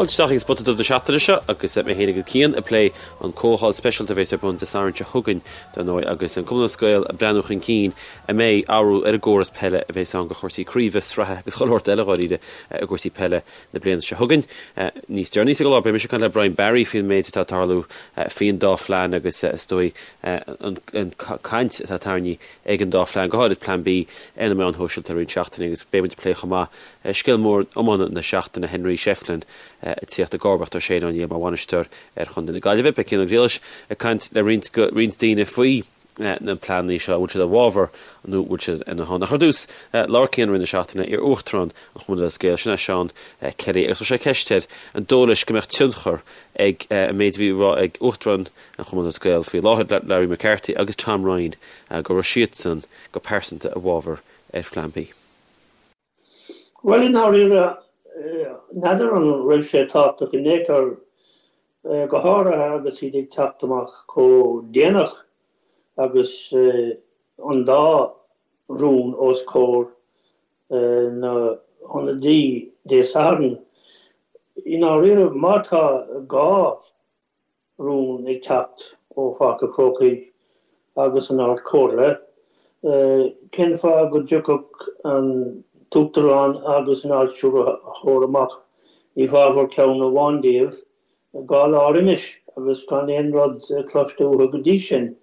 Fáilte isteach ag Spota Dubh na seachtaine seo agus mé féin agus Cian ag plé an comhdháil speisialta a bheas ar bun Dé Sathairn seo chugainn, dar ndóigh, agus an Cumann Lúthchleas Gael ag breathnú chun cinn an mbeidh athrú ar an gcóras peile a bheas ann do chúrsaí craoibhe, sraithe agus chuile shórt eile dháiríre i gcúrsaí peile na bliana seo chugainn. Níos deireanaí sa gclár beidh mise ag caint le Brian Barry faoin méid atá ag tarlú faoin dá phlean agus is dóigh an caint atá tarraingthe ag an dá phlean, go háirid Plean B, ar na meáin shóisialta i roinnt seachtainí agus beidh muid ag plé chomh maith Scéal mór iomána na seachtaine, Henry Shefflin ag tíocht i gcomharbacht ar Shane O'Neill mar bhainisteoir ar chontae na Gaillimhe. Beidh Cian Ó Griallais ag caint le roinnt roinnt daoine faoi na pleananna seo, an bhfuil siad i bhfabhar nó an bhfuil siad ina shon. Ach ar dtús, labhair Cian i rith na seachtaine le iar-uachtarán an Chumainn Lúthchleas Gael, sin é Seán Kelly, agus chuir sé ceist air an dóigh leis go mbeadh tionchar ag an méid a bhí á rá ag uachtarán an Chumainn Lúthchleas Gael faoi láthair, Larry McCarthy agus Tom Ryan, go raibh siadsan go pearsanta i bhfabhar ar Phlean B. Bhuel, i ndáiríre, n'fheadar an raibh sé tábhachtach in aon chor, go háirithe agus iad ag teacht amach chomh déanach agus an dá rún os comhair na hionadaí Dé Sathairn. I ndáiríre, má tá gá rún ag teacht ó Pháirc an Chrócaigh agus an Ard Chomhairle, cén fáth go dtiocfadh an tUachtarán agus an Ard-Stiúrthóir amach i bhfabhar ceann amháin díobh 2 lá roimis agus gan aon rud cloiste uathu go dtí sin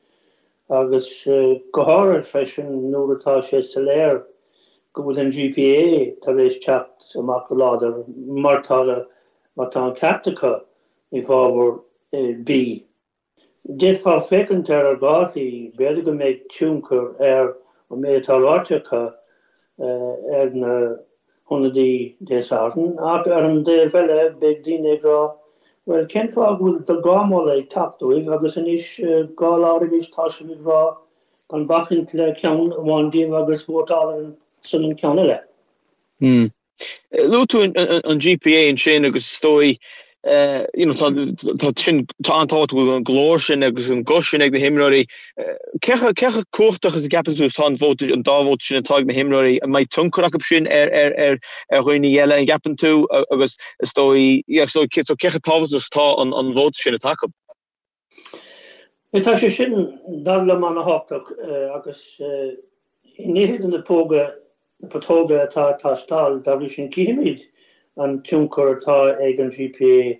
agus go háirithe freisin nuair atá sé soiléir go bhfuil an GPA tar éis teacht amach go láidir mar tá mar tá an ceart acu i bhfabhar B. D'fhéadfá féachaint air ar dhá shlí, b'fhéidir go mbeidh tionchar ar an méid atá ráite acu ar na hionadaí Dé Sathairn, ach ar an dtaobh eile beidh daoine ag rá bhuel cén fáth go bhfuil dhá mholadh ag teacht uaibh agus anois 2 lá roimis tá sibh ag rá gan bacaint le ceann amháin díobh agus vótáil ar son an ceann eile. Luaigh tú an GPA ansin agus is dóigh you know tá tá sin tá an-tábhacht go bhfuil an glór sin agus an guth sin ag na himreoirí. Cé chomh cé chomh cumhachtach is a gceapann tú is atá an vóta an dá vóta sin atá ag na himreoirí? An mbeidh tionchar acu sin ar ar ar ar dhaoine eile an gceapann tú agus is dóigh yeah so cé so cé chomh tábhachtach is atá an an vóta sin atá acu? Tá sé sin, dar liom, an-thábhachtach agus i ndiaidh na póga, na putóga atá ag teastáil, dá bhrí sin cífimid an tionchar atá ag an GPA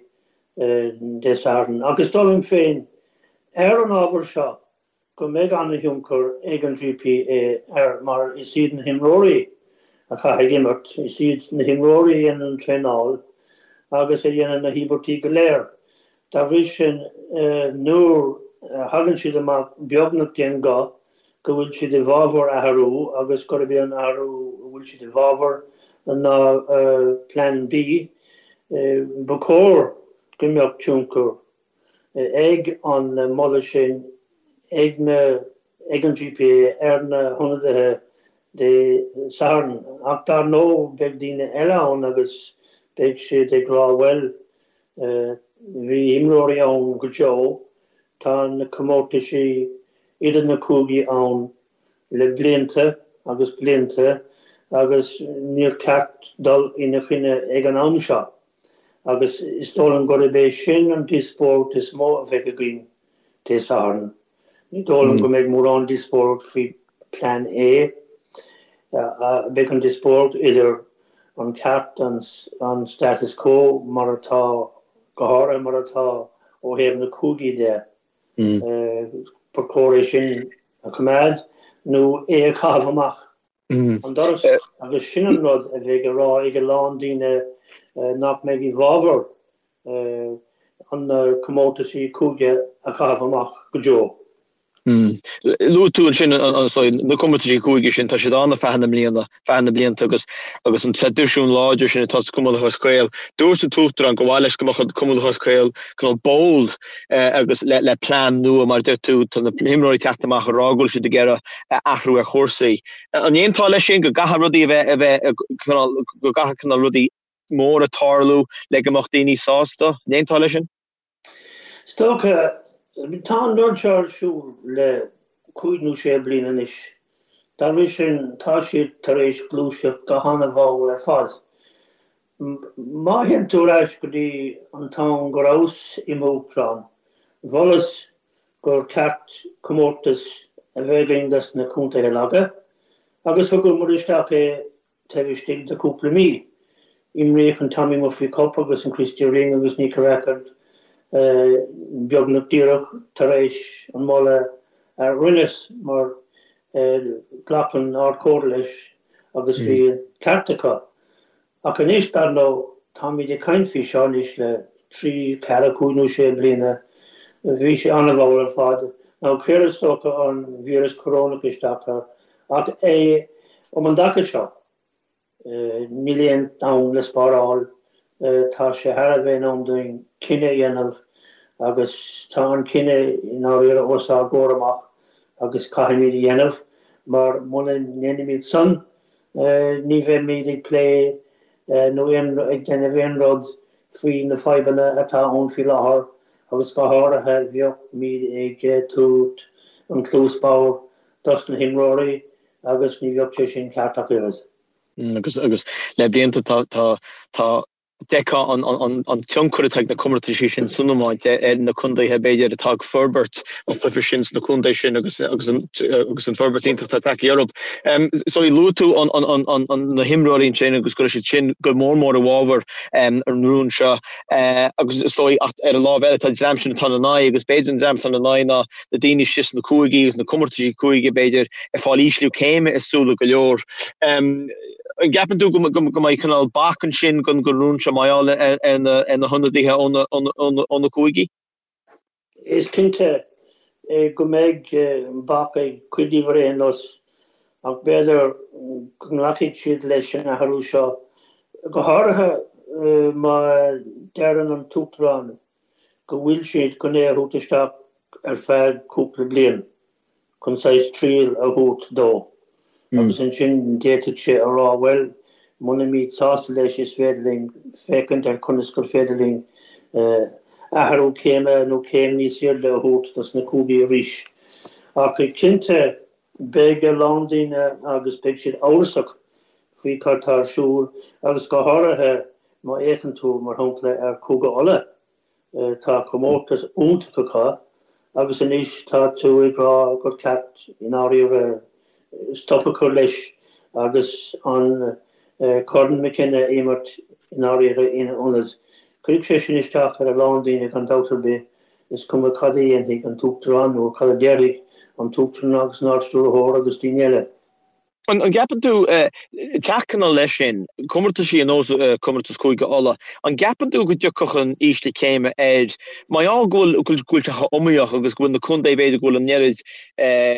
Dé Sathairn. Ach is dóigh liom féin, ar an ábhar seo, go mbeidh an-thionchar ag an GPA air mar is iad na himreoirí a chaithfidh imirt, is iad na himreoirí a dhéanann an traenáil agus a dhéanann na híobairtí go léir. Dá bhrí sin, nuair a thagann siad amach beagnach d'aon ghuth go bhfuil siad i bhfabhar athrú agus gurb é an athrú a bhfuil siad i bhfabhar ná Plean B, ba chóir go mbeadh tionchar ag an moladh sin ag na ag an GPA ar na hionadaithe Dé Sathairn. Ach dar ndóigh beidh daoine eile ann agus beidh siad ag rá bhuel bhí imreoirí ann go deo, tá na comórtaisí idir na cúigí ann le blianta agus blianta agus níor cheart dul ina choinne ag an am seo. Agus is dóigh liom gurb é sin an díospóireacht is mó a bheidh againn Dé Sathairn. Ní dóigh liom go mbeidh mórán díospóireacht faoi Plean A. Beidh an díospóireacht idir an ceart an status quo mar atá, go háirithe mar atá ó thaobh na cúigí de. Ba chóir é sin a choimeád nó é a chaitheamh amach. an doras agus sin an rud a bheidh á rá ag a lán daoine nach mbeidh i bhfabhar an na comórtaisí cúige a chaitheamh amach go deo. Luaigh tú ansin na comórtaisí cúige sin, tá siad ann ar feadh na mbliana, feadh na blianta agus agus an traidisiún láidir sin atá sa Chumann Lúthchleas Gael. Dúirt an tUachtarán gur mhaith leis go mbeadh an Cumann Lúthchleas Gael cineál bold agus le le plean nua mar a deir tú, tá na himreoirí ag teacht amach ag rá go bhfuil siad ag iarraidh athrú ar chúrsaí. An aontófá leis sin go gcaithfidh rudaí a bheith, a bheith, cineál, go gcaithfidh cineál rudaí móra tarlú le go mbeadh daoine sásta? An aontófá leis sin? Is dócha, tá an rud seo ar siúl le cúig nó sé bliana anois. Dá bhrí sin, tá siad tar éis gluaiseacht go han-mhall ar fad. Má théann tú ar ais go dtí an t-am go rabhas i m'uachtarán, mholas gur ceart comórtas a bheith againn dos na contaetha laga agus thugamar isteach é taobh istigh de chúpla mí. Imríodh an Tommy Murphy Cup agus an Christy Ring agus Nicky Rackard beagnach díreach tar éis an moladh a rinneas mar ghlac an Ard-Chomhairle leis agus bhí an ceart acu. Ach anois, dar ndóigh, táimid ag caint faoi seo anois le 3, 4, 5 nó 6 bliana. Bhí sé an-mhall ar fad. Now chuir is dócha an víreas corónach isteach air. Ach é um an dtaca seo, níl aon am le spáráil. Tá sé thar a bheith in am dúinn cinneadh a dhéanamh agus tá an cinneadh i ndáiríre os ár gcomhair amach agus caithfimid a dhéanamh mar muna ndéanaimid san, Ní bheimid ag plé nó ag déanamh aon rud faoi na fadhbanna atá ann faoi láthair agus go háirithe bheadh-míd ag tabhairt an cluas bhodhar dos na himreoirí agus ní bheadh sé sin ceart ach oiread. Agus agus le blianta tá tá tá D'fheicfeá an tionchar atá ag na comórtaisí sin san iomáint ar na contaetha, b'fhéidir, atá ag forbairt an chluiche sin sna contaetha sin agus an forbairt iontach atá tagtha orthu. So luaigh tú na himreoirí ansin agus go raibh siad sin go mór mór i bhfabhar an rún seo agus is dóigh ach ar an lámh eile tá an dream sin atá ina n-aghaidh agus b'fhéidir an dream atá ina n-aghaidh ná na daoine istigh sna cúigí agus na comórtaisí cúige b'fhéidir ag fáil ísliú céime i súile go leor. An gceapann tú go mbeidh cineál bac ansin don rún seo mar gheall ar na hionadaithe ó na cúigí? Is cinnte go mbeidh bac ag cuid díobh ar aon nós ach b'fhéidir go nglacfaidh siad leis an athrú seo, go háirithe má deireann an tUachtarán go bhfuil siad chun é a thabhairt isteach ar feadh cúpla bliain chun saghas triail a thabhairt dó agus ansin d'fhéadfadh sé a rá bhuel muna mbíd sásta leis is féidir linn féachaint ar conas gur féidir linn athrú céime nó céim níos airde a thabhairt dos na cúigí arís. Ach cinnte beidh a lán daoine agus beidh siad amhrasach faoi cad tá ar siúl agus go háirithe má fhéachann tú, mar shampla, ar Chúige Uladh, tá comórtas iontach acu agus anois tá tú ag rá gur ceart i ndáiríre stop a chur leis agus an Corn McKenna a imirt i ndáiríre ina ionad. Cuirfidh sé sin isteach ar a lán daoine gan dabht ar bith, is cuma cad a dhéanfaidh an tUachtarán nó cad a déarfaidh an tUachtarán agus an Ard-Stiúrthóir agus daoine eile. An gceapann tú, teacht cineál leis sin, comórtaisí ar nós comórtas Cúige Uladh, an gceapann tú go dtiocfadh an ísliú céime air, mar gheall go bhfuil, go bhfuil sé chomh iomaíoch agus go bhfuil na contaetha b'fhéidir go bhfuil an oiread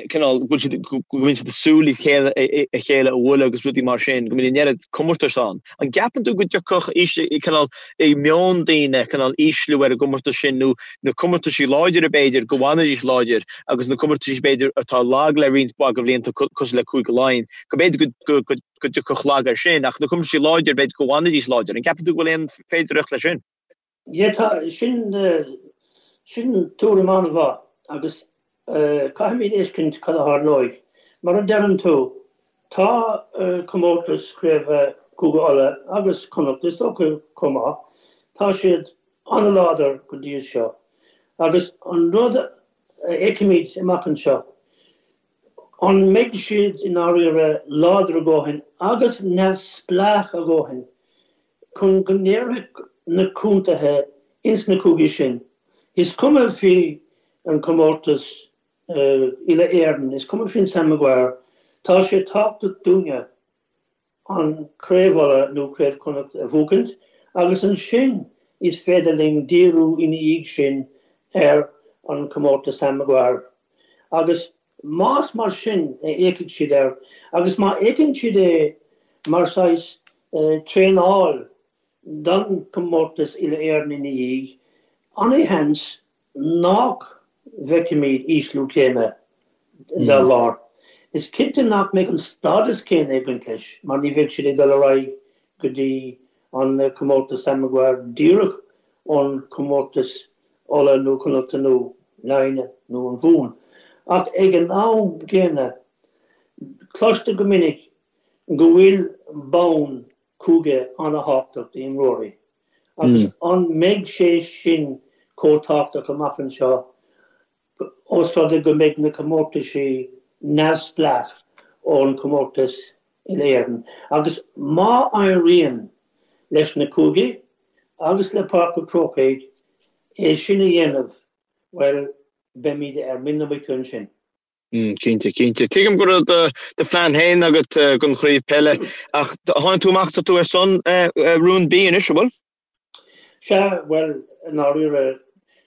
cineál, go bhfuil siad, go mbíonn siad ag súil le chéile, a chéile a bhualadh agus rudaí mar sin, go mbíonn an oiread comórtais ann. An gceapann tú go dtiocfadh cineál i meon daoine cineál ísliú ar an gcomórtas sin nó na comórtaisí láidire b'fhéidir go bhfanfaidís láidir agus na comórtaisí b'fhéidir atá lag le roinnt mhaith de bhlianta cosúil le Cúige Laighean go b'fhéidir go dtiocfadh lag air sin ach na comórtaisí láidir b'fhéidir go bhfanfaidís láidir. An gceapann tú go bhfuil aon féidearthacht leis sin? Yeah tá, sin, sin tuairim an-mhaith agus caithfimid fheiscint cad a tharlóidh. Mar a deireann tú, tá comórtas craoibhe Chúige Uladh agus Connacht is dócha chomh maith, tá siad an-láidir go dtí seo agus an rud a fheicfimid amach anseo, an mbeidh siad i ndáiríre láidir a dhóthain agus neamhspleách a dhóthain chun go ndéarfadh na contaetha ins na cúigí sin, is cuma faoi an comórtas uile-Éireann, is cuma faoin Sam Maguire, tá sé tábhachtach dúinne an Craobh Uladh nó Craobh Chonnacht a bhuachaint agus ansin is féidir linn díriú ina dhiaidh sin ar an comórtas Sam Maguire. Agus Más mar sin a fhéachfaidh siad air, agus má fhéachann siad é mar saghas traenáil don chomórtas uile-Éireann ina dhiaidh, an-sheans nach bhfeicfimid ísliú céime dá bharr. Is cinnte nach mbeidh an stádas céanna ag baint leis mar ní bheidh siad ag dul ar aghaidh go dtí an comórtas Sam Maguire díreach ón chomórtas Uladh nó Connachta nó Laighin nó an Mhumhan. Ach ag an am gcéanna, cloistear go minic go bhfuil bonn. Cúige an-thábhachtach d'imreoirí agus an mbeidh sé sin chomh tábhachtach amach anseo ós rud é go mbeidh na comórtaisí neamhspleách ón chomórtas Uile-Éireann agus má éiríonn leis na cúigí agus le Páirc an Chrócaigh é sin a dhéanamh, bhuel, beimid ar mhuin na muice ansin. Cinnte, cinnte. Tuigim go raibh do phlean féin agat don chraobh peile ach tháinig tú amach, tá tú ar son rún B anois, an bhfuil? Sea, bhuel, i ndáiríre,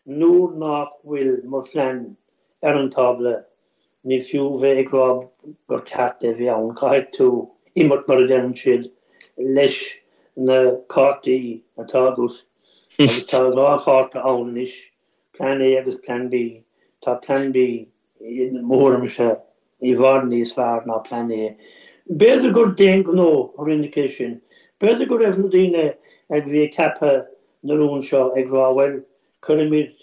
nuair nach bhfuil mo phlean ar an tábla, ní fiú bheith ag rá gur ceart é bheith ann, caithfidh tú imirt, mar a deireann siad, leis na cártaí atá agat, agus tá 2 chárta ann anois, Plean A agus Plean B. Tá Plean B i mo thuairimse, i bhfad níos fearr ná Plean A. B'fhéidir gur d'aon ghnó a rinneadh é sin. B'fhéidir go raibh na daoine a bhí ag ceapadh na rún seo ag rá bhuel, cuirfimid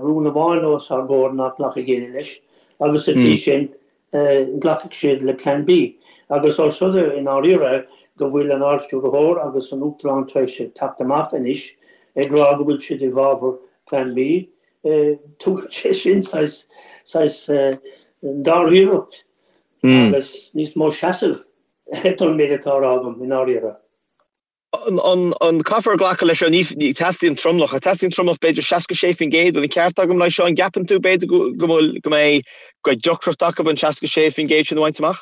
rún amháin os ár gcomhair nach nglacfaidh éinne leis agus sa tslí sin glacfaidh siad le Plean B. Agus ós rud é i ndáiríre go bhfuil an Ard-Stiúrthóir agus an Uachtarán tar éis teacht amach anois ag rá go bhfuil siad i bhfabhar Plean B, Tugann sé sin saghas, saghas dáiríreacht agus níos mó seasamh don méid atá á rá agam, i ndáiríre. An caithfear glacadh leis seo? Ní teastaíonn tromlach. Teastaíonn tromlach b'fhéidir 66% an ceart agam leis seo? An gceapann tú b'fhéidir go bhfuil, go mbeidh, go mbeidh deacracht acu an 66% sin a bhaint amach?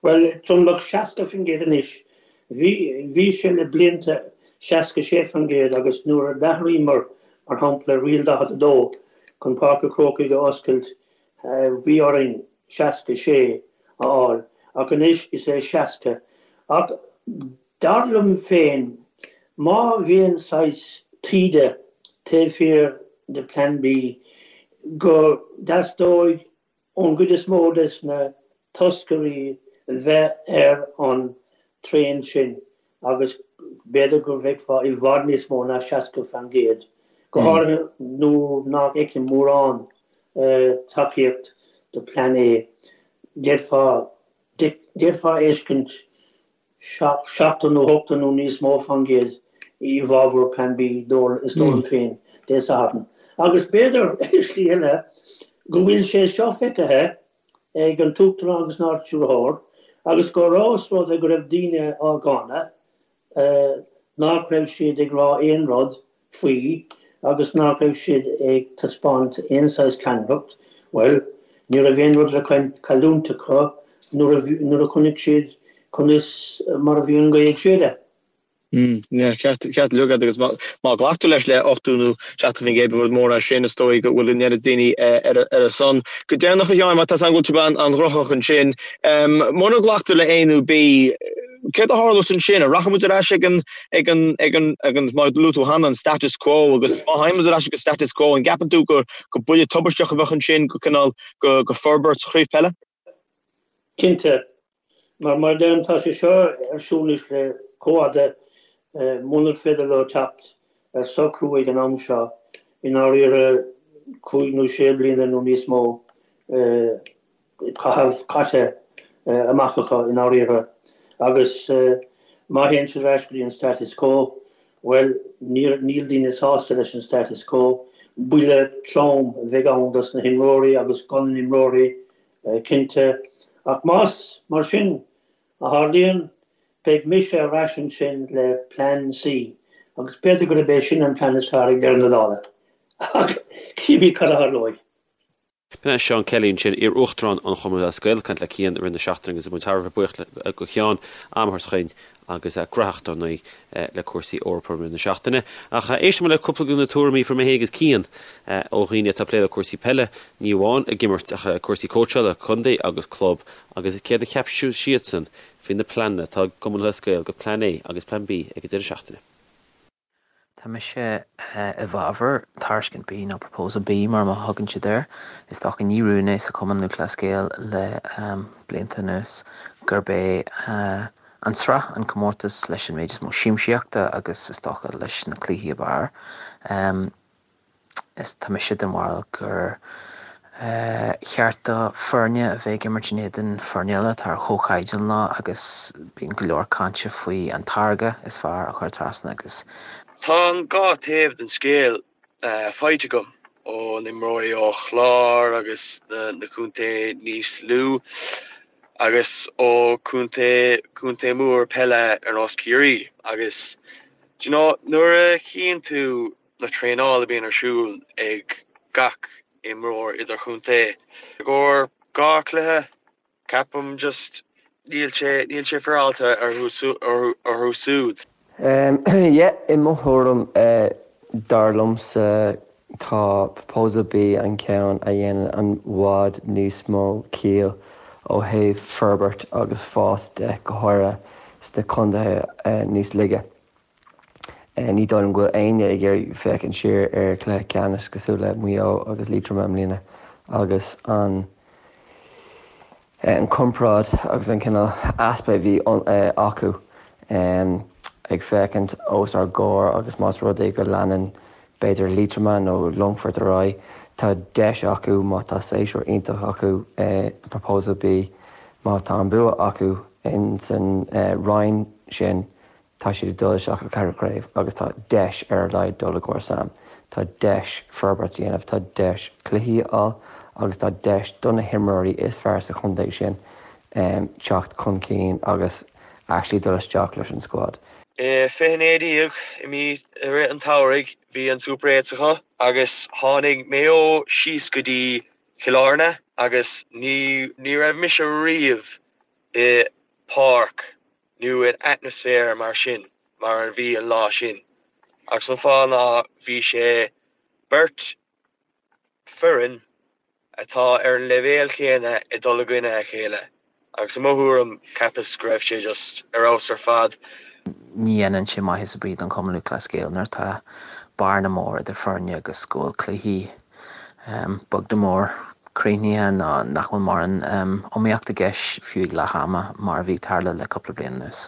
Bhuel, tromlach 60% anois. Bhí, bhí sé le blianta 66% agus nuair a d'athraíomar, mar shampla, Riail 42 chun Páirc an Chrócaigh a oscailt, bhí orainn 66 a fháil ach anois is é 60. Ach dar liom féin, má bhíonn saghas taoide taobh thiar de Plan B, go dteastóidh ón gcuid is mó des na toscairí bheith ar an traein sin agus b'fhéidir go bhfeicfeá i bhfad níos mó ná 60%, go háirithe nuair nach bhfeicim mórán tacaíocht do Plean A. D'fhéadfá d'fhéadfá a fheiscint 70 nó 80 nó níos mó fán gcéad i bhfabhar Plean B, is dóigh liom féin, Dé Sathairn. Agus b'fhéidir, i slí eile, go bhfuil sé seo feicthe ag an tUachtarán agus an Ard-Stiúrthóir agus gur ós rud é go raibh daoine á gcáineadh, nach raibh siad ag rá aon rud faoi agus nach raibh siad ag taispeáint aon saghas ceannaireacht, bhuel, ní raibh aon rud le cailliúint acu nuair a chonaic siad conas mar a bhí an ghaoth ag séideadh. Yeah, ceart uilig agat agus má ghlactar leis le 80 nó 70% ba rud mór é sin, is dóigh go bhfuil an oiread daoine ar a son. Go deireanach a Sheáin, má tá a fhios agam go bhfuil tú an-ghnóthach ansin, mura nglactar le A nó B, Céard a tharlós ansin? An rachaidh muid ar ais ag an, ag an, ag an, ag an, mar a luaigh tú cheana, an status quo agus má théann muid ar ais ag an status quo, an gceapann tú gur, gur buille tubaisteach a bheadh ansin go cineál, go, go forbairt sa chraobh peile? Cinnte. Mar, mar a deirim, tá sé seo ar siúl anois le chomh fhada, munar féidir leo teacht ar socrú ag an am seo, i ndáiríre, cúig nó sé bliana nó níos mó, caitheamh caite amach acu i ndáiríre agus má théann siad ar ais go dtí an status quo, bhuel, níl daoine sásta leis an status quo. Buille trom a bheidh ann dos na himreoirí agus do na himreoirí cinnte. Ach más mar sin a tharlaíonn, beidh mise ar ais ansin le Plean C agus b'fhéidir gurb é sin an plean is fearr ag deireadh na dála. Ach cífimid cad a tharlóidh. B'in é Seán Kelly ansin, iar-Uachtarán an Chumainn Lúthchleas Gael, ag caint le Cian i rith na seachtaine agus muid thar a bheith buíoch do Sheán am a thabhairt chugainn agus gnóthach dar ndóigh le cúrsaí Eorpa i rith na seachtaine. Ach éistfidh muid le cúpla de na tuairimí a fuair mé féin agus Cian ó dhaoine atá ag plé le cúrsaí peile, ní amháin ag imirt ach cúrsaí cóitseála, contae agus club agus céard a cheap siadsan faoi na pleananna atá ag Cumann Lúthchleas Gael do Plean A agus Plean B ag an deireadh seachtaine. Tá mise i bhfabhar Tairiscint B nó Proposal B mar a thugann siad air. Is dócha ní rún é sa Chumann Lúthchleas Gael le blianta anuas gurb é an tsraith an comórtas leis an méid is mó siamsaíochta agus is dócha leis na cluichí ab fhearr. Is tá mise den bharúil gur. Cheart do foirne a bheith ag imirt in éadan foirne eile atá ar chomhchaighdeán leo agus bíonn go leor cainte faoi an táirge is fearr a chur trasna agus. Tá an dhá taobh den scéal faighte agam ó na imreoirí ó Chlár agus na contae níos lú agus ó contae contae mór peile ar nós Ciarraí agus do you know nuair a chíonn tú na traenáil a bhíonn ar siúl ag gach imreoir idirchontae. I gcomhair 2 chluiche, ceapaim just níl sé, níl sé féaráilte orthu siúd. Yeah, i mo thuairim, dar liomsa tá Proposal B an ceann a dhéanann i bhfad níos mó ciall ó thaobh forbairt agus fás de, go háirithe sna contaetha níos laige. Ní dóigh liom go bhfuil éinne ag iarraidh féachaint siar ar chluiche ceannais cosúil le Maigh Eo agus Liatroma i mbliana agus an an comparáid agus an cineál easpa a bhí acu ag féachaint os ár gcomhair agus más rud é go leanann b'fhéidir Liatroma nó Longfort ar aghaidh, tá deis acu má tá séasúr iontach acu Proposal B, má tá an bua acu in san roinn sin Tá siad ag dul isteach go ceathrú craobh agus tá deis ar a laghad dul i gcomhair Sam. Tá deis forbairt a dhéanamh, tá deis cluichí a fháil agus tá deis do na himreoirí is fearr sa chontae sin teacht chun cinn agus actually dul isteach leis an squad. I 2019 i mí i rith an tsamhraidh bhí an Super Eights acu agus tháinig Maigh Eo síos go dtí Cill Airne agus ní ní raibh mise riamh i páirc nó in atmaisféar mar sin mar a bhí an lá sin agus an fáth ná bhí sé beirt foireann atá ar an leibhéal céanna ag dul i gcoinne a chéile agus i mo thuairim cheapas go raibh sé just ar fheabhas ar fad. Ní dhéanann sé maitheas ar bith don Chumann Lúthchleas Gael nuair atá bearna mór idir foirne agus go bhfuil cluichí beag nó mór críochnaithe nó nach bhfuil mórán iomaíocht i gceist fiú ag leath ama mar a bhí ag tarlú le cúpla bliain anuas.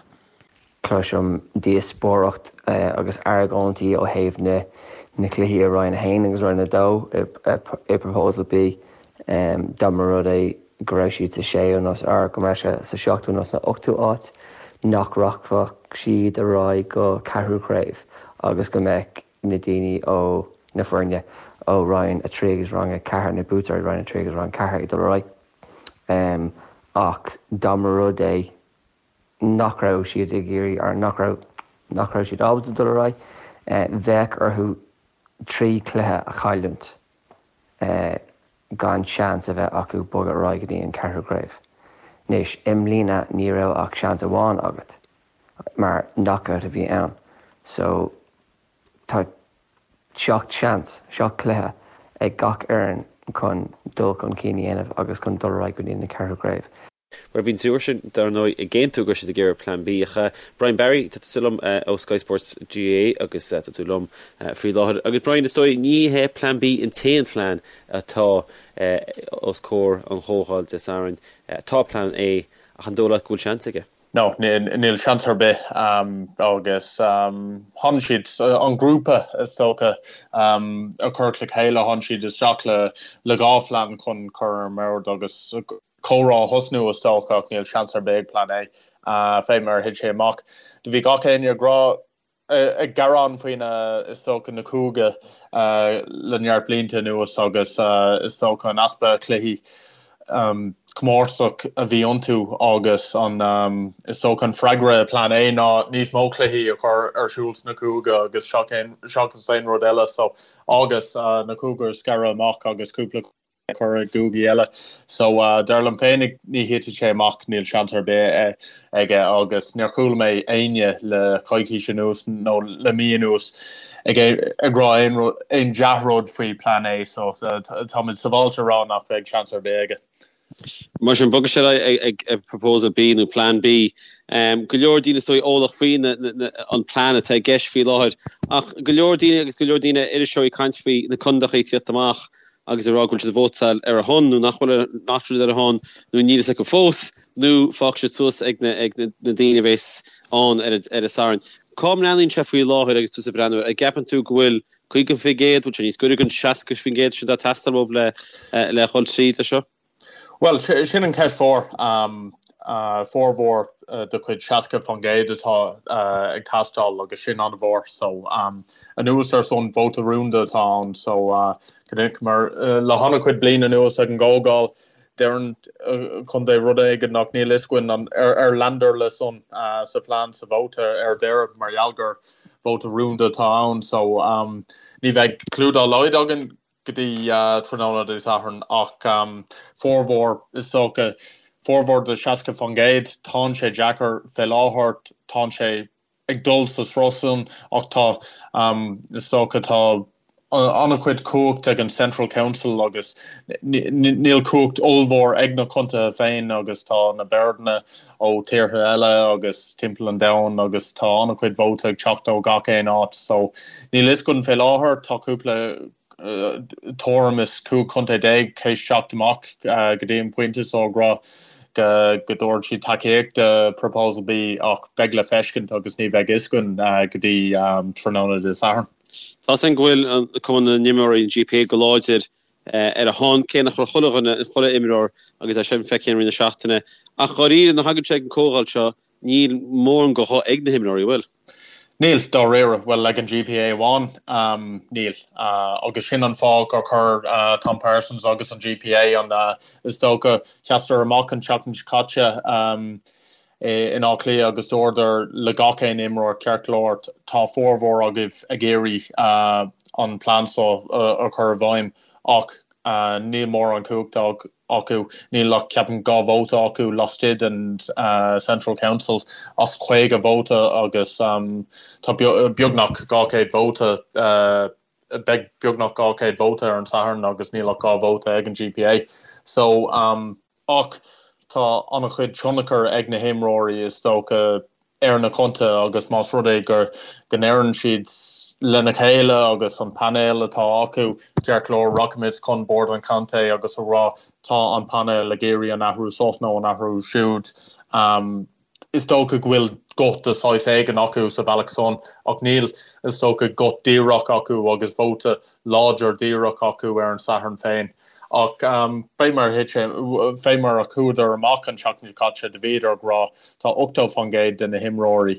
Cloisim díospóireacht agus argóintí ó thaobh na na cluichí i Roinn 1 agus Roinn 2 i Proposal B. Dá mba rud é go raibh siad sa séú nó or go mbeadh sé sa seachtú nó san ochtú áit, nach rachfadh siad ar aghaidh go ceathrú craobh agus go mbeadh na daoine ó na foirne ó Roinn 3 agus Roinn 4, na buaiteoirí Roinn 3 agus Roinn 4 ag dul ar aghaidh. Ach dá mba rud é nach raibh siad ag iarraidh or nach raibh nach raibh siad ábalta dul ar aghaidh, bheadh orthu trí chluiche a chailliúint gan seans a bheith acu bogadh ar aghaidh go dtí an ceathrú craobh. Anois, i mbliana ní raibh ach seans amháin agat. mar knockout a bhí ann. So tá 7 seans, 7 cluiche ag gach fhoireann chun dul chun cinn a dhéanamh agus chun dul ar aghaidh go dtí na ceathrú craobh. Bhuel, bhí an triúr sin, dar ndóigh, ag aontú go raibh siad ag iarraidh Plean B. Ach Brian Barry, tá tusa liom ó Sky Sports GAA agus tá tú liom faoi láthair. Agus Brian, is dóigh, ní hé Plean B an t-aon phlean atá os comhair an Chomhdháil Dé Sathairn. Tá Plean A, ach an dóigh leat go bhfuil seans aige? No, níl seans ar bith agus tháinig siad, an grúpa is dócha, a chuir le chéile, tháinig siad isteach le 2 phlean chun cur ar an mbord agus comhrá a thosnú is dócha ach níl seans ar bith ag Plean A fé mar a thit sé amach. Do bhí gach éinne ag rá ag gearán faoi na, is dócha, na cúige le neart blianta anuas agus is dócha an easpa cluichí comórtasach a bhí iontu agus an, is dócha, an freagra i Plean A ná níos mó cluichí a chur ar siúl sna cúige agus seachas aon rud eile so agus na cúige a scaradh amach agus cúpla cur i gcúigí eile. So dar liom féinig ní thitfidh sé amach, níl seans ar bith aige agus níor chuala mé éinne le coicís anuas nó le mí anuas ag ag rá aon aon dea-rud faoi Plean A so táimid sábháilte a rá nach bheidh seans ar bith aige. Mar sin, bogfaidh sé ar aghaidh ag Proposal B nó Plean B. Go leor daoine is dóigh eolach faoi an plean atá i gceist faoi láthair ach go leor daoine agus go leor daoine iriseoirí ag caint faoi na condaecha ag tíocht amach agus ag rá go bhfuil siad ag vótáil ar a shon nó nach bhfuil nach bhfuil siad ar a shon nó níl fhios acu fós nó fágfaidh siad suas ag na ag na daoine a bheas ann ar an ar an Satharn. Cá mbreathnaíonn sé faoi láthair agus tusa ag breathnú air? An gceapann tú go bhfuil. 50%, bhfuil sé níos gaire don 60% sin atá ag teastáil uathu le le dhul tríd leis seo? Bhuel, sin an cheist mhór. Formhór de chuid 60% atá ag teastáil agus sin an-mhór. So, anuas ar san, vóta rúnda atá ann. So, mar le han-chuid bliain anuas ag an gcomhdháil, deireann contae rud éigin ach níl fhios againn an ar leanadar le san sa phlean sa vóta ar deireadh mar gheall gur vóta rúnda atá ann. So, ní bheidh clue dá laghad againn go dtí tráthnóna Dé Sathairn ach formhór, is dócha, formhór de 60%, tánn sé deacair fé láthair, tánn sé ag dul sa sruth san ach tá, is dócha, tá an-chuid cumhacht ag an Central Council agus níl cumhacht ollmhór ag na contaetha féin agus tá na boirdanna ó tíortha eile agus timpeall an domhain agus tá an-chuid vóta ag teacht ó gach aon áit so níl fhios againn fé láthair, tá cúpla tuairim is 15 contae théis teacht amach go dtí an pointe so ag rá go dtabharfaidh siad tacaíocht do Proposal B ach beidh le feiscint agus ní bheidh fhios againn go dtí tráthnóna Dé Sathairn. Tá a fhios againn go bhfuil Cumann na nImreoirí, an GPA, go láidir ar a shon, cé nach raibh chuile dhuine, chuile imreoir agus é sin feicthe i rith na seachtaine. Ach dháiríre, nuair a thagann sé ag an comhdháil seo, níl mórán de ghuth ag na himreoirí, an bhfuil? Níl, dáiríre. Bhuel, ag an GPA amháin, níl. Agus sin an fáth gur chuir Tom Parsons agus an GPA an, is dócha, sheasadar amach an tseachtain seo caite in Áth Cliath agus dúradar le gach aon imreoir, ceart go leor, tá formhór agaibh ag iarraidh an plean seo a chur i bhfeidhm ach níl mórán cumhachta acu, níl ach, ceapaim, 2 vóta acu laistigh den Central Council as 50 vóta agus tá beagnach 200 vóta, beidh beagnach 200 vóta ar an Satharn agus níl ach 2 vóta ag an GPA. So, ach tá an-chuid tionchar ag na himreoirí is dócha ar na contaetha agus más rud é gur go ndeireann siad lena chéile agus an painéal atá acu, ceart go leor, rachaimid chun bord an chontae agus a rá tá an painéal ag iarraidh an athrú seo nó an athrú siúd. Is dócha go bhfuil guth de saghas éigin acu sa bhealach san ach níl, is dócha, guth díreach acu agus vóta láidir díreach acu ar an Satharn féin. Ach fé mar a thit sé, fé mar a chuadar amach an tseachtain seo caite, do bhíodar ag rá, tá 80% de na himreoirí,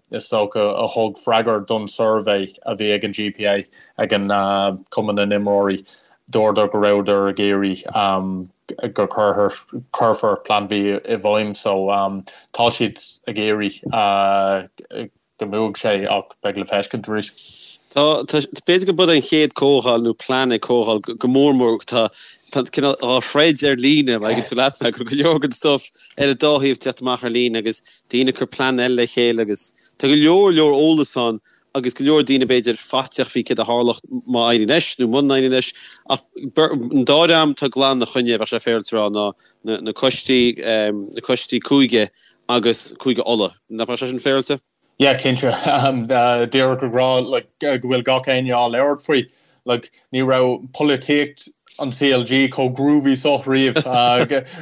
is dócha, a thug freagra don suirbhé a bhí ag an GPA, ag an Cumann na nImreoirí, dúradar go rabhadar ag iarraidh go cuirfear Plean B i bhfeidhm. So tá siad ag iarraidh go mbuafaidh sé ach beidh le feiscint arís. Tá, tá, b'fhéidir go b'é an chéad comhdháil nó plean ag comhdháil go mór mór tá, tá cineál á throid ar líne, má thuigeann tú leat mé, go go leor den stuff ar an dá thaobh ag teacht amach ar líne agus daoine ag cur plean eile le chéile agus tá go leor leor eolas ann agus go leor daoine b'fhéidir faiteach faoi céard a tharlódh má éiríonn leis nó muna n-éiríonn leis ach an dá dhream atá glan ina choinne, bheadh sé féaráilte a rá, ná na coistí, na coistí cúige agus Cúige Uladh. Nach mbeadh sé sin féaráilte? Yeah, cinnte. Díreach ag rá like, go bhfuil gach éinne á labhairt faoi. Like, ní raibh polaitíocht an CLG chomh groovy so riamh.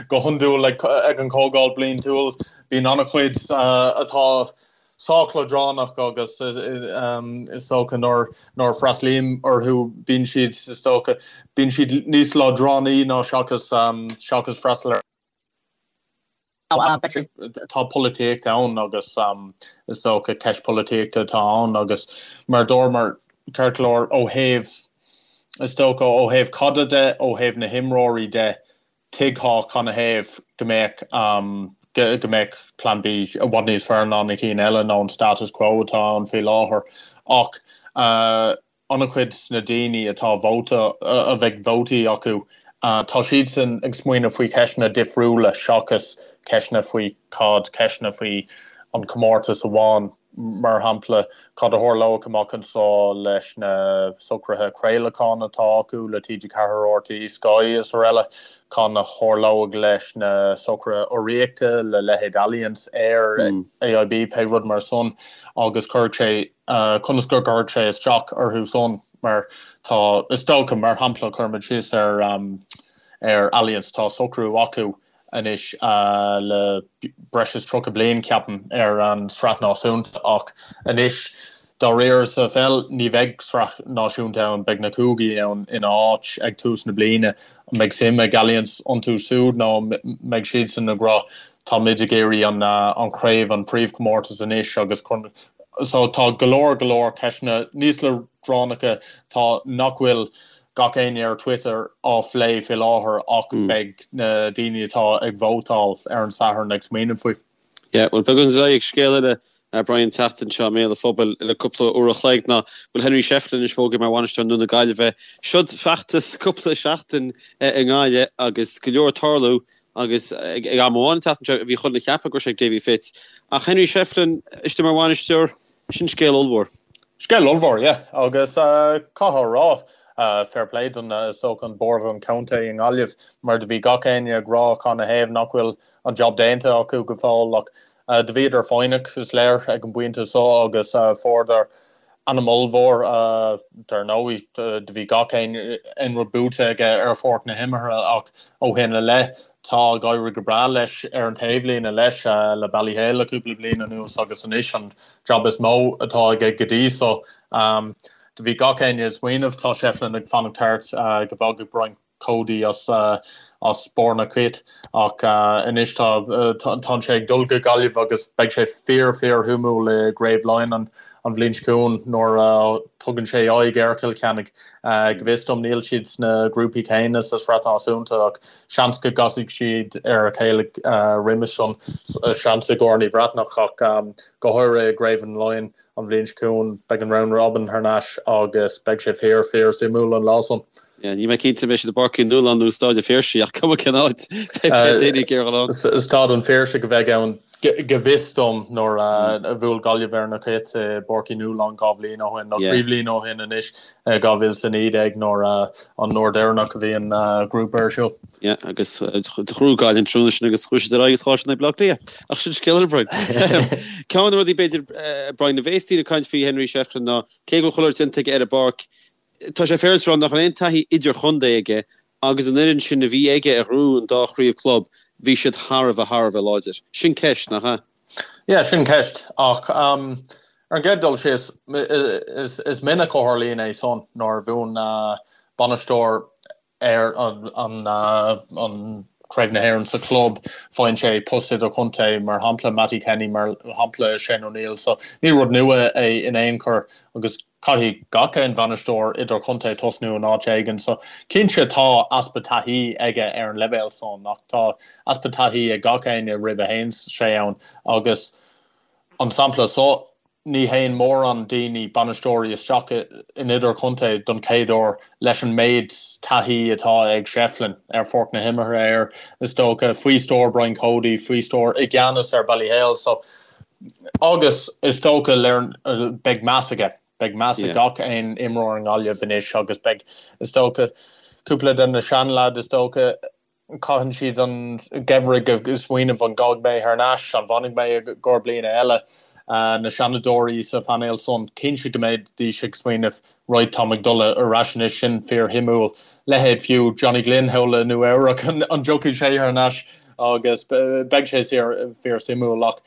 Go hiondúil like, ag an chomhdháil bliantúil bíonn an-chuid atá sách leadránach agus is dócha nuair a freastalaím orthu bíonn siad is dócha bíonn siad níos leadránaí ná seachas seachas freastal ar Tá polaitíocht ann agus is dócha ceist polaitíochta atá ann agus mar dúramar ceart go leor ó thaobh, is dócha ó thaobh caide de, ó thaobh na himreoirí de, tuigfeá canathaobh go mbeadh go mbeadh Plean B i bhfad níos fearr ná na cinn eile nó an status quo atá ann faoi láthair ach an-chuid de na daoine atá vóta, a bheidh vótaí acu, tá siadsan ag smaoineamh faoi cheisteanna difriúla seachas ceisteanna faoi caid, ceisteanna faoi an comórtas amháin, mar shampla, cad a tharlóidh amach anseo leis na socruithe craolacháin atá acu le TG4, RTÉ, Sky is araile, cad a tharlóidh leis na socruithe urraíochta le leithéid Allianz, Eir, AIB, pé rud mar san, agus cuirfidh sé conas go gcuirfidh sé isteach orthu san mar tá, is dócha, mar shampla, cuirimid síos ar ar Allianz, tá socrú acu anois le breis is 30 bliain, ceapaim, ar an Sraith Náisiúnta ach anois. Dáiríre sa pheil ní bheidh sraith náisiúnta ann, beidh na cúigí ann ina áit ag tús na bliana. An mbeidh suim ag Allianz iontu siúd nó an mbeidh siadsan ag rá tá muid ag iarraidh an chraobh, an príomhchomórtas anois agus so tá go leor go leor ceisteanna níos leadránacha tá nach bhfuil gach éinne ar Twitter á phlé faoi láthair ach beidh na daoine atá ag vótáil ar an Satharn ag smaoineamh faoi. Yeah, bhuel beagán ag scéal eile, Brian, an tseachtain seo i mbéal an phobail le cúpla uair a chloig ná go bhfuil Henry Shefflin anois fógartha mar bhainisteoir Ndún na Gaillimhe. Seod feachtas cúpla seachtain i nGaillimh agus go leor ag tarlú agus ag am amháin an tseachtain seo bhí chuile dhuine ag ceapadh go raibh sé ag Davy Fitz. Ach Henry Shefflin istigh mar bhainisteoir, Sin scéal ollmhór. Scéal ollmhór, yeah. Agus caithfear a rá, fair play don, is dócha, an bord an chontae i nGaillimh, mar do bhí gach éinne ag rá canathaobh nach bhfuil an job déanta acu go fóill ach do bhíodar foighneach, is léir, ag an bpointe so agus fuaireadar ainm ollmhór, dar ndóigh, do bhí gach aon rud buaite aige ar pháirc na himeartha ach ó shin i leith tá ag éirí go breá leis ar an taobhlíne leis le Ballyhale le cúpla bliain anuas agus anois an job is mó atá aige go dtí so. Do bhí gach éinne ag smaoineamh tá Shefflin ag fanacht thart go bhfágfaidh Brian Cody as as barr na cait ach anois tá tá sé ag dul go Gaillimh agus beidh sé fíor fíor shuimiúil i gCraobh Laighean an an bhliain seo chugainn nuair a tugann sé aghaidh ar Chill Chainnigh. Go bhfios dom níl siad sna grúpaí céanna sa Sraith Náisiúnta ach seans go gcasfaidh siad ar a chéile roimis san, seans i gCorn Uí Bhreathnach ach go háirithe i gCraobh an Laighean an bhliain seo chugainn beidh an round robin thar n-ais agus beidh sé fíor fíor suimiúil an lá san. Níl mé cinnte an mbeidh siad i bPáirc Uí Nualláin nó Stáid an Phiarsaigh ach cuma cén áit beidh daoine ag iarraidh dul ann. Staid an Phiarsaigh a bheidh ann go bhfios dom nuair a bhuail Gaillimh ar na Cait i bPáirc Uí Nualláin 2 bhliain ó shin, nó 3 bhliain ó shin anois, 2019 nuair an uair deireanach a bhí an grúpa ar siúl. Yeah, agus ghnóthaigh Gaillimh an tráthnóna sin agus chuaigh siad ar aghaidh agus chaill siad in aghaidh Baile Átha Cliath. Ach sin scéal eile, Brian. Ceann de na rudaí b'fhéidir, Brian, a bhéas daoine ag caint faoi Henry Shefflin ná cé go bhfuil chuile shórt déanta aige ar an bpáirc, Tá sé féaráilte a rá nach raibh aon taithí idirchontae aige agus an fhoireann sin a bhí aige a ghnóthaigh an dá chraobh club, bhí siad thar a bheith, thar a bheith láidir. Sin ceist, nach ea? Yeah, sin ceist. Ach ar an gcéad dul síos, is minic a tharlaíonn é san nuair a bhuann bainisteoir ar an Craobh na hÉireann sa chlub, faigheann sé post idirchontae, mar shampla Mattie Kenny, mar shampla Shane O'Neill. So ní rud nua é in aon chor agus caithfidh gach aon bhainisteoir idirchontae tosnú in áit éigin. So cinnte tá easpa taithí aige ar an leibhéal san ach tá easpa taithí ag gach éinne roimh a théann sé ann agus an sampla so Ní théann mórán daoine, bainisteoirí, isteach in idirchontae don chéad uair leis an méid taithí atá ag Shefflin ar pháirc na himeartha air, is dócha, faoi stiúir Brian Cody, faoi stiúir, i gceannas ar Ballyhale. So, agus is dócha, beidh meas aige, beidh meas ag gach aon imreoir i nGaillimh anois agus beidh, is dócha, cúpla de na seanleaids, is dócha, Caitheann siad an geimhreadh ag smaoineamh an gabhfaidh mé thar n-ais, an bhfanfaidh mé i gcomhair bliana eile. Na seanadóirí sa phainéal san, cinnte go mbeidís ag smaoineamh right táim ag dul ar ais anois, sin fíor shuimiúil. Leithéid fiú Johnny Glynn thall i Nua Eabhrac, an dtiocfaidh sé thar n-ais agus beidh sé fíor suimiúil ach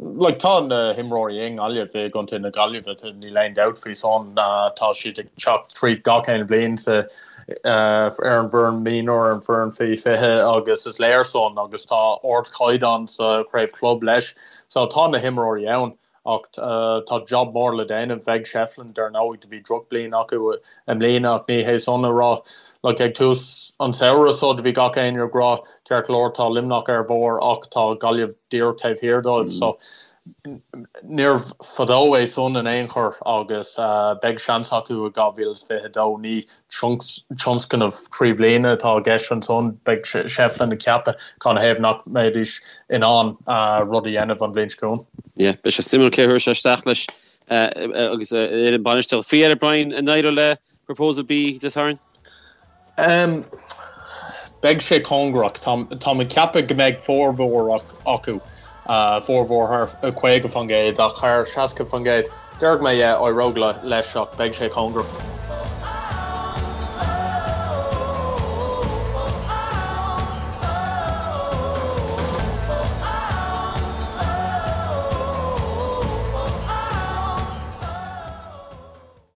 Like, tá na himreoirí i nGaillimh, i gContae na Gaillimhe, níl aon dabht faoi san, tá siad ag teacht tríd gach aon bhliain sa, ar an bhfoireann mionúr, ar an bhfoireann faoi 20 agus is léir san agus tá ardchaighdeán sa chraobh chlub leis. So tá na himreoirí ann ach tá job mór le déanamh ag Shefflin, dar ndóigh, do bhí drochbhliain acu i mbliana ach ní hé san a rá, like, ag tús an samhradh so do bhí gach éinne ag rá Ceart go leor, tá Luimneach ar bharr ach tá Gaillimh díreach taobh thiar dóibh so níorbh fadó é san in aon chor agus beidh seans acu i 2022. Ní tionscnamh trí bliana atá i gceist ansan, beidh Shefflin ag ceapadh canathaobh nach mbeidís in ann rud a dhéanamh an bhliain seo chugainn. Yeah, beidh sé suimiúil cé a thabharfaidh sé isteach leis agus ar an bainistíocht. Faoi dheireadh, Brian, an éireoidh le Proposal B Dé Sathairn? Beidh sé cóngarach. Táim ag ceapadh go mbeidh formhór acu, formhór thar 50% ach thar 60%. Déarfaidh mé yeah, éireoidh leis ach beidh sé cóngarach.